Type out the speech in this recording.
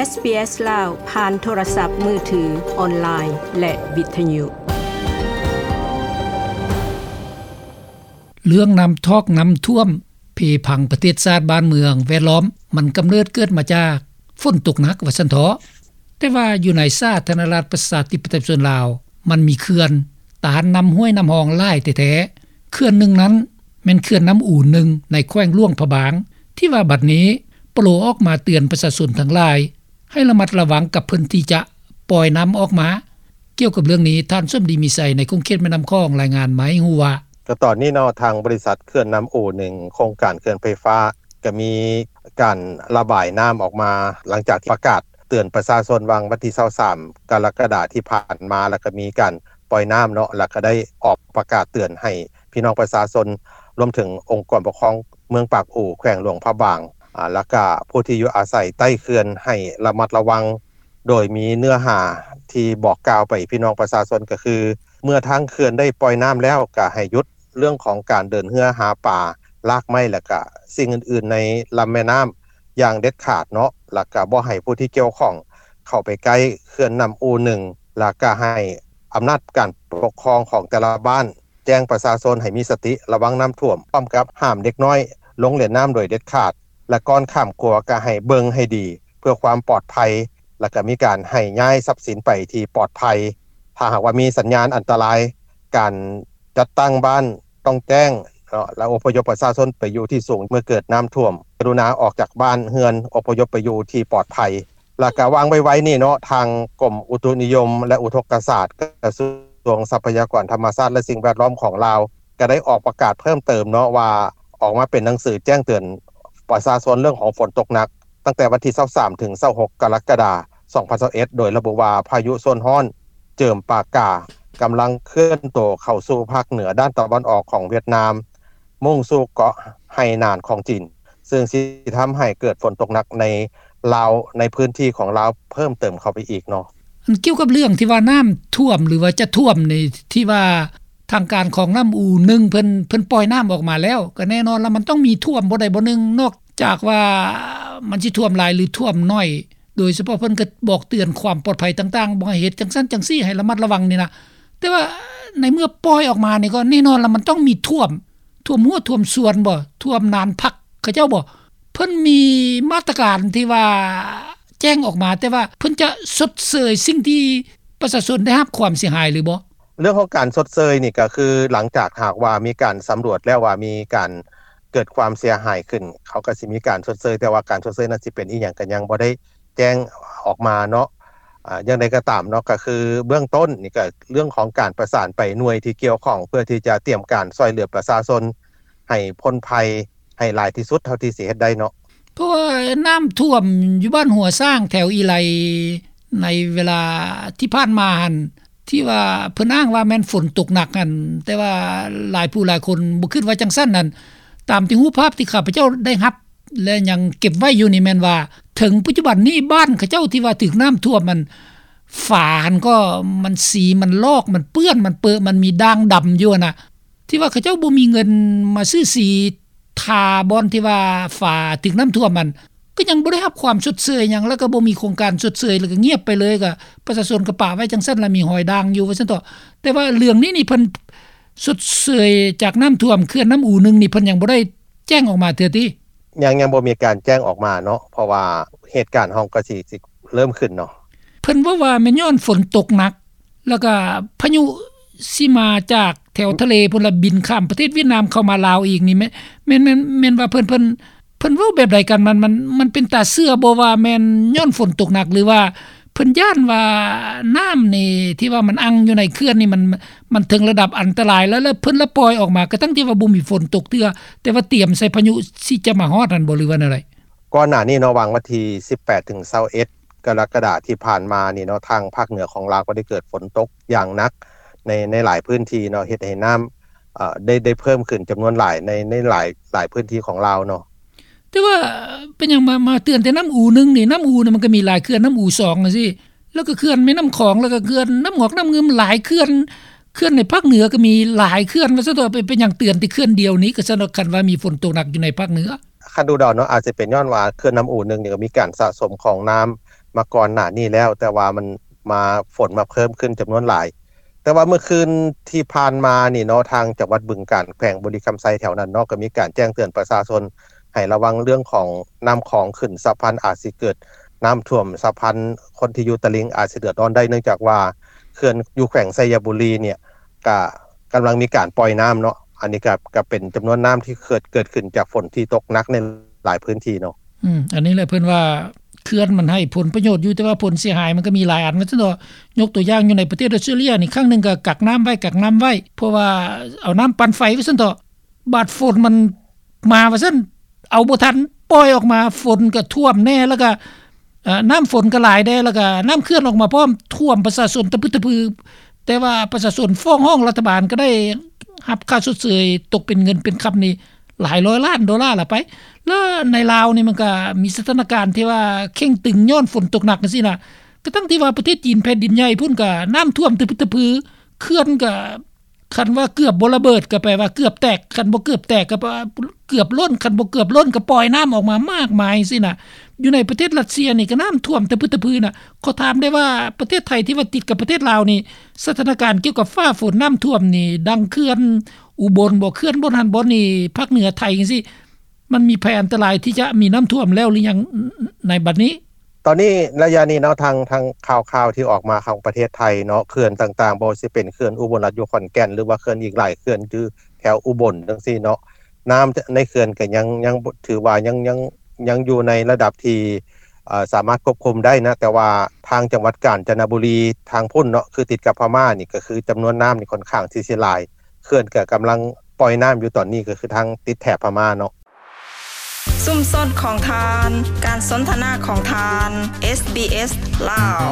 ເອສບີເອສ ລາວ ຜ່ານໂທລະສັບມືຖື, ອອນລາຍ ແລະ ວິທະຍຸ. ເລື່ອງນ້ຳຖອກນ້ຳຖ້ວມ ເພພັງປະເທດຊາດບ້ານເມືອງແວດລ້ອມ ມັນກຳເນີດເກີດມາຈາກຝົນຕົກໜັກວ່າຊັ້ນເຖາະ. ແຕ່ວ່າຢູ່ໃນສາທາລະນະລັດປະຊາທິປະໄຕປະຊາຊົນລາວ ມັນມີເຂື່ອນຕ້ານນ້ຳຫ້ວຍນ້ຳຮ່ອງຫຼາຍແທ້ໆ. ເຂື່ອນໜຶ່ງນັ້ນແມ່ນເຂື່ອນນ້ຳອູໜຶ່ງ ໃນແຂວງຫຼວງພະບາງ ທີ່ວ່າບັດນີ້ປະໂລອອກມາເຕືອນປະຊາຊົນທັງຫຼາຍ ໃຫ້ລະມັດລະວັງກັບເພິ່ນທີ່ຈະປ່ອຍນ້ຳອອກມາ. ກ່ຽວກັບເລື່ອງນີ້ ທ່ານ ສົມດີ ມີໄຊ ໃນຂົງເຂດແມ່ນ້ຳຂອງ ລາຍງານມາໃຫ້ຮູ້ວ່າ ກໍຕອນນີ້ເນາະ ທາງບໍລິສັດເຂື່ອນນ້ຳອູໜຶ່ງ ໂຄງການເຂື່ອນໄຟຟ້າ ກໍມີການລະບາຍນ້ຳອອກມາ ຫຼັງຈາກທີ່ປະກາດເຕືອນປະຊາຊົນ ຫວ່າງວັນທີຊາວສາມ ກໍລະກະດາທີ່ຜ່ານມາ ແລ້ວກໍມີການປ່ອຍນ້ຳເນາະ ແລ້ວກໍໄດ້ອອກປະກາດເຕືອນໃຫ້ພີ່ນ້ອງປະຊາຊົນ ລວມເຖິງອົງກອນປົກຄອງເມືອງປາກອູ ແຂວງຫຼວງພະບາງ ອາ ແລ້ວກະຜູ້ທີ່ຢູ່ອາໄສໃຕ້ເຂື່ອນໃຫ້ລະມັດລະວັງ ໂດຍມີເນື້ອຫາທີ່ບອກກ່າວໄປພີ່ນ້ອງປະຊາຊົນ ກໍຄື ເມື່ອທາງເຂື່ອນໄດ້ປ່ອຍນ້ຳແລ້ວ ກະໃຫ້ຢຸດເລື່ອງຂອງການເດີນເຮືອຫາປາ, ລາກໄມ້ ແລ້ວກະສິ່ງອື່ນໆໃນລຳແມ່ນ້ຳຢ່າງເດັດຂາດເນາະ ແລ້ວກະບໍ່ໃຫ້ຜູ້ທີ່ກ່ຽວຂ້ອງເຂົ້າໄປໃກ້ເຂື່ອນນ້ຳອູໜຶ່ງ ແລ້ວກະໃຫ້ອຳນາດການປົກຄອງຂອງແຕ່ລະບ້ານ ແຈ້ງປະຊາຊົນໃຫ້ມີສະຕິລະວັງນ້ຳຖ້ວມ ພ້ອມກັບຫ້າມເດັກນ້ອຍລົງຫຼິ້ນນ້ຳໂດຍເດັດຂາດ ແລະ ກ່ອນຂ້າມຂົວກໍໃຫ້ເບິ່ງໃຫ້ດີເພື່ອຄວາມປອດໄພ ແລະ ກໍມີການໃຫ້ຍ້າຍຊັບສິນໄປທີ່ປອດໄພ. ຖ້າຫາກວ່າມີສັນຍານອັນຕະລາຍ ການຈັດຕັ້ງບ້ານຕ້ອງແຈ້ງເນາະ ແລະ ອົບພະຍົບປະຊາຊົນໄປຢູ່ທີ່ສູງ ເມື່ອເກີດນ້ຳຖ້ວມ ກະລຸນາອອກຈາກບ້ານເຮືອນ ອົບພະຍົບໄປຢູ່ທີ່ປອດໄພ. ແລ້ວກະຫວ່າງໄວໆນີ້ເນາະ ທາງກົມອຸຕຸນິຍົມ ແລະ ອຸທົກກະສາດ ກະຊວງຊັບພະຍາກອນທຳມະຊາດ ແລະ ສິ່ງແວດລ້ອມຂອງລາວ ກະໄດ້ອອກປະກາດເພີ່ມເຕີມເນາະ ວ່າອອກມາເປັນໜັງສືແຈ້ງເຕືອນປະຊາຊົນເລື່ອງຂອງຝົນຕົກໜັກ ຕັ້ງແຕ່ວັນທີຊາວສາມ ເຖິງຊາວຫົກ ກໍລະກະດາ ສອງພັນຊາວເອັດ ໂດຍລະບຸວ່າ ພາຍຸໂຊນຮ້ອນເຈີມປາກາ ກຳລັງເຄື່ອນໂຕເຂົ້າສູ່ພາກເໜືອດ້ານຕາເວັນອອກຂອງຫວຽດນາມ ມຸ່ງສູ່ເກາະໄຫໜານຂອງຈີນ ເຊິ່ງຊິທຳໃຫ້ເກີດຝົນຕົກໜັກໃນລາວ ໃນພື້ນທີ່ຂອງລາວເພີ່ມເຕີມເຂົ້າໄປອີກເນາະ. ອັນກ່ຽວກັບເລື່ອງທີ່ວ່ານ້ຳຖ້ວມ ຫຼືວ່າຈະຖ້ວມນີ້ ທີ່ວ່າທາງການຂອງນ້ຳອູໜຶ່ງເພິ່ນ ເພິ່ນປ່ອຍນ້ຳອອກມາແລ້ວ ກໍແນ່ນອນລະ ມັນຕ້ອງມີຖ້ວມບໍ່ໃດບໍ່ໜຶ່ງ ນອກຈາກວ່າມັນຊິຖ້ວມຫຼາຍ ຫຼື ຖ້ວມໜ້ອຍ ໂດຍສະເພາະເພິ່ນກໍບອກເຕືອນຄວາມປອດໄພຕ່າງໆ ບໍ່ໃຫ້ເຮັດຈັ່ງຊັ້ນຈັ່ງຊີ້ ໃຫ້ລະມັດລະວັງນີ້ນະ. ແຕ່ວ່າໃນເມື່ອປ່ອຍອອກມານີ້ ກໍແນ່ນອນລະ ມັນຕ້ອງມີຖ້ວມ ຖ້ວມຮົ້ວຖ້ວມສວນບໍ່ ຖ້ວມນານພັກເຂົາເຈົ້າບໍ່ ເພິ່ນມີມາດຕະການທີ່ວ່າແຈ້ງອອກມາ ແຕ່ວ່າເພິ່ນຈະຊົດເຊີຍສິ່ງທີ່ປະຊາຊົນໄດ້ຮັບຄວາມເສຍຫາຍຫຼືບໍ່? ເລື່ອງຂອງການຊົດເຊີຍນີ້ ກໍຄືຫຼັງຈາກຫາກວ່າມີການສຳຫຼວດແລ້ວວ່າມີການເກີດຄວາມເສຍຫາຍຂຶ້ນ ເຂົາກໍຊິມີການຊົດເຊີຍ ແຕ່ວ່າການຊົດເຊີຍນັ້ນຊິເປັນອີ່ຫຍັງ ກໍຍັງບໍ່ໄດ້ ແຈ້ງອອກມາເນາະ. ອາ ຢ່າງໃດກໍຕາມເນາະ ກໍຄືເບື້ອງຕົ້ນນີ້ ກໍເລື່ອງຂອງການປະສານໄປໜ່ວຍທີ່ກ່ຽວຂ້ອງ ເພື່ອທີ່ຈະຕຽມການຊ່ວຍເຫຼືອປະຊາຊົນໃຫ້ພົ້ນໄພໃຫ້ຫຼາຍທີ່ສຸດເທົ່າທີ່ຊິເຮັດໄດ້ເນາະ. ເພາະວ່ານ້ຳຖ້ວມຢູ່ບ້ານຫົວຊ້າງ ແຖວອີໄລ ໃນເວລາທີ່ຜ່ານມາຫັ້ນ ທີ່ວ່າເພິ່ນອ້າງວ່າແມ່ນຝົນຕົກໜັກຫັ້ນ ແຕ່ວ່າຫຼາຍຜູ້ຫຼາຍຄົນບໍ່ຄິດວ່າຈັ່ງຊັ້ນນັ້ນ. ຕາມທີ່ຮູບພາບທີ່ຂ້າພະເຈົ້າໄດ້ຮັບ ແລະ ຍັງເກັບໄວ້ຢູ່ນີ້ແມ່ນວ່າ ເຖິງປັດຈຸບັນນີ້ບ້ານເຂົາເຈົ້າທີ່ວ່າຖືກນ້ຳຖ້ວມ ມັນ ຝາຫັ້ນກໍມັນ ສີມັນລອກ ມັນເປື້ອນ ມັນເປິ ມັນມີດ່າງດຳຢູ່ຫັ້ນນະ ທີ່ວ່າເຂົາເຈົ້າບໍ່ມີເງິນມາຊື້ສີທາບ່ອນທີ່ວ່າຝາຖືກນ້ຳຖ້ວມຫັ້ນ ກໍຍັງບໍ່ໄດ້ຮັບຄວາມຊົດເຊີຍຫຍັງ ແລ້ວກໍບໍ່ມີໂຄງການຊົດເຊີຍ ແລ້ວກໍງຽບໄປເລີຍ ກໍປະຊາຊົນກໍປະໄວ້ຈັ່ງຊັ້ນ ແລ້ວມີຮອຍດ່າງຢູ່ວ່າຊັ້ນເຖາະ. ແຕ່ວ່າເລື່ອງນີ້ນີ້ ເພິ່ນຊົດເຊີຍຈາກນ້ຳຖ້ວມເຂື່ອນນ້ຳອູໜຶ່ງນີ້ ເພິ່ນຍັງບໍ່ໄດ້ ແຈ້ງອອກມາເທື່ອຕິ? ຍັງ ຍັງບໍ່ມີການແຈ້ງອອກມາເນາະ ເພາະວ່າເຫດການເຮົາກໍຊິ ຊິເລີ່ມຂຶ້ນເນາະ. ເພິ່ນເວົ້າວ່າແມ່ນຍ້ອນຝົນຕົກໜັກ ແລ້ວກະພາຍຸຊິມາຈາກແຖວທະເລພຸ້ນລະ ບິນຂ້າມປະເທດຫວຽດນາມເຂົ້າມາລາວອີກນີ້ ແມ່ນ ແມ່ນ ແມ່ນ ແມ່ນວ່າເພິ່ນ ເພິ່ນ ເພິ່ນເວົ້າແບບໃດກັນ? ມັນ ມັນ ມັນເປັນຕາເຊື່ອບໍ່ວ່າແມ່ນຍ້ອນຝົນຕົກໜັກ ຫຼືວ່າ ເພິ່ນຢ້ານວ່ານ້ຳນີ້ທີ່ວ່າມັນອັ່ງຢູ່ໃນເຂື່ອນນີ້ ມັນ ມັນເຖິງລະດັບອັນຕະລາຍແລ້ວ ແລ້ວເພິ່ນລະປ່ອຍອອກມາ ກະທັ່ງທີ່ວ່າບໍ່ມີຝົນຕົກເທື່ອ ແຕ່ວ່າຕຽມໃສ່ພາຍຸຊິຈະມາຮອດຫັ້ນບໍ່ ຫຼືວ່າແນວໃດ? ກ່ອນໜ້ານີ້ເນາະ ຫວ່າງວັນທີສິບແປດ ເຖິງ ຊາວເອັດ ກໍລະກະດາທີ່ຜ່ານມານີ້ເນາະ ທາງພາກເໜືອຂອງລາວກໍໄດ້ເກີດຝົນຕົກຢ່າງໜັກໃນ ໃນຫຼາຍພື້ນທີ່ເນາະ ເຮັດໃຫ້ນ້ຳ ເອີ ໄດ້ ໄດ້ເພີ່ມຂຶ້ນຈຳນວນຫຼາຍໃນ ໃນຫຼາຍ ຫຼາຍພື້ນທີ່ຂອງລາວເນາະ. ແຕ່ວ່າເປັນຫຍັງມາ ມາເຕືອນແຕ່ນ້ຳອູໜຶ່ງນີ້? ນ້ຳອູນີ້ມັນກໍມີຫຼາຍເຂື່ອນ ນ້ຳອູສອງຈັ່ງຊີ້ ແລ້ວກໍເຂື່ອນແມ່ນ້ຳຂອງ ແລ້ວກໍເຂື່ອນນ້ຳຫງອກນ້ຳງື່ມ ຫຼາຍເຂື່ອນ ເຂື່ອນໃນພາກເໜືອກໍມີຫຼາຍເຂື່ອນ ວ່າຊັ້ນເຖາະ. ເປັນ ເປັນຫຍັງເຕືອນແຕ່ເຂື່ອນດຽວນີ້ ກະຊັ້ນເນາະ ຄັນວ່າມີຝົນຕົກໜັກຢູ່ໃນພາກເໜືອ? ຄັນດູເດົາເນາະ ອາດຈະເປັນຍ້ອນວ່າເຂື່ອນນ້ຳອູໜຶ່ງນີ້ກໍມີການສະສົມຂອງນ້ຳ ມາກ່ອນໜ້ານີ້ແລ້ວ ແຕ່ວ່າມັນມາ ຝົນມາເພີ່ມຂຶ້ນຈຳນວນຫຼາຍ. ແຕ່ວ່າເມື່ອຄືນທີ່ຜ່ານມານີ້ເນາະ ທາງຈັງຫວັດບຶງການ ແຂວງບໍລິຄຳໄຊແຖວນັ້ນເນາະ ກໍມີການແຈ້ງເຕືອນປະຊາຊົນໃຫ້ລະວັງເລື່ອງຂອງນ້ຳຂອງຂຶ້ນ ຊາວພັນອາດຊິເກີດນ້ຳຖ້ວມ ຊາວພັນຄົນທີ່ຢູ່ຕະລິ່ງອາດຊິເດືອດຮ້ອນໄດ້ ເນື່ອງຈາກວ່າເຂື່ອນຢູ່ແຂວງໄຊຍະບູລີນີ້ ກະກຳລັງມີການປ່ອຍນ້ຳເນາະ. ອັນນີ້ກະ ກະເປັນຈຳນວນນ້ຳທີ່ເກີດ ເກີດຂຶ້ນຈາກຝົນທີ່ຕົກໜັກໃນຫຼາຍພື້ນທີ່ເນາະ. ອືມ ອັນນີ້ແຫຼະເພິ່ນວ່າເຂື່ອນມັນໃຫ້ຜົນປະໂຫຍດຢູ່ ແຕ່ວ່າຜົນເສຍຫາຍມັນກໍມີຫຼາຍອັນ ວ່າຊັ້ນເຖາະ. ຍົກຕົວຢ່າງຢູ່ໃນປະເທດອອສເຕຣເລຍນີ້ ຄັ້ງໜຶ່ງກໍກັກນ້ຳໄວ້ ກັກນ້ຳໄວ້ ເພາະວ່າເອົານ້ຳປັ່ນໄຟ ວ່າຊັ້ນເຖາະ. ບາດຝົນມັນມາວ່າຊັ້ນ ເອົາບໍ່ທັນ ປ່ອຍອອກມາ ຝົນກໍຖ້ວມແດ່ ແລ້ວກໍ ເອີ ນ້ຳຝົນກໍຫຼາຍແດ່ ແລ້ວກໍນ້ຳເຂື່ອນອອກມາພ້ອມ ຖ້ວມປະຊາຊົນຕະພຶດຕະພື. ແຕ່ວ່າປະຊາຊົນຟ້ອງຮ້ອງລັດຖະບານ ກໍໄດ້ຮັບຄ່າຊົດເຊີຍຕົກເປັນເງິນເປັນຄຳນີ້ຫຼາຍຮ້ອຍລ້ານໂດລາລະໄປ. ແລ້ວໃນລາວນີ້ມັນກໍມີສະຖານະການທີ່ວ່າເຄັ່ງຕຶງຍ້ອນຝົນຕົກໜັກຈັ່ງຊີ້ນະ. ກະທັງທີ່ວ່າປະເທດຈີນແຜ່ນດິນໃຫຍ່ພຸ້ນກໍນ້ຳຖ້ວມຕະພຶດຕະພື ເຂື່ອນກໍ ຄັນວ່າເກືອບບໍ່ລະເບີດກໍແປວ່າເກືອບແຕກ ຄັນບໍ່ເກືອບແຕກກໍແປວ່າເກືອບລົ້ນ ຄັນບໍ່ເກືອບລົ້ນກໍປ່ອຍນ້ຳອອກມາມາກມາຍຊີ້ນະ. ຢູ່ໃນປະເທດຣັດເຊຍນີ້ກໍນ້ຳຖ້ວມຕະພຶດຕະພືນະ. ຂໍຖາມໄດ້ວ່າປະເທດໄທທີ່ວ່າຕິດກັບປະເທດລາວນີ້ ສະຖານະການກ່ຽວກັບຟ້າຝົນນ້ຳຖ້ວມນີ້ ດັ່ງເຂື່ອນອຸບົນບໍ ເຂື່ອນບ່ອນຫັ້ນບ່ອນນີ້ ພາກເໜືອໄທຈັ່ງຊີ້ ມັນມີໄພອັນຕະລາຍທີ່ຈະມີນ້ຳຖ້ວມແລ້ວຫຼືຍັງໃນບັດນີ້? ຕອນນີ້ໄລຍະນີ້ເນາະ ທາງ ທາງຂ່າວໆທີ່ອອກມາຂອງປະເທດໄທເນາະ ເຂື່ອນຕ່າງໆ ບໍ່ວ່າຊິເປັນເຂື່ອນອຸບົນລັດຢູ່ຂອນແກ່ນ ຫຼືວ່າເຂື່ອນອີກຫຼາຍເຂື່ອນຢູ່ແຖວອຸບົນຈັ່ງຊີ້ເນາະ ນ້ຳໃນເຂື່ອນກໍຍັງ ຍັງຖືວ່າຍັງ ຍັງ ຍັງຢູ່ໃນລະດັບທີ່ ເອີ ສາມາດຄວບຄຸມໄດ້ນະ. ແຕ່ວ່າທາງຈັງຫວັດການຈະນະບູລີທາງພຸ້ນເນາະ ຄືຕິດກັບພະມ້ານີ້ ກໍຄືຈຳນວນນ້ຳນີ້ຂ້ອນຂ້າງທີ່ຊິຫຼາຍ ເຂື່ອນກໍກຳລັງປ່ອຍນ້ຳຢູ່ຕອນນີ້ ກໍຄືທາງຕິດແຖບພະມ້າເນາະ. ຊຸມຊົນຂອງທ່ານ ການສົນທະນາຂອງທ່ານ ເອສບີເອສ ລາວ.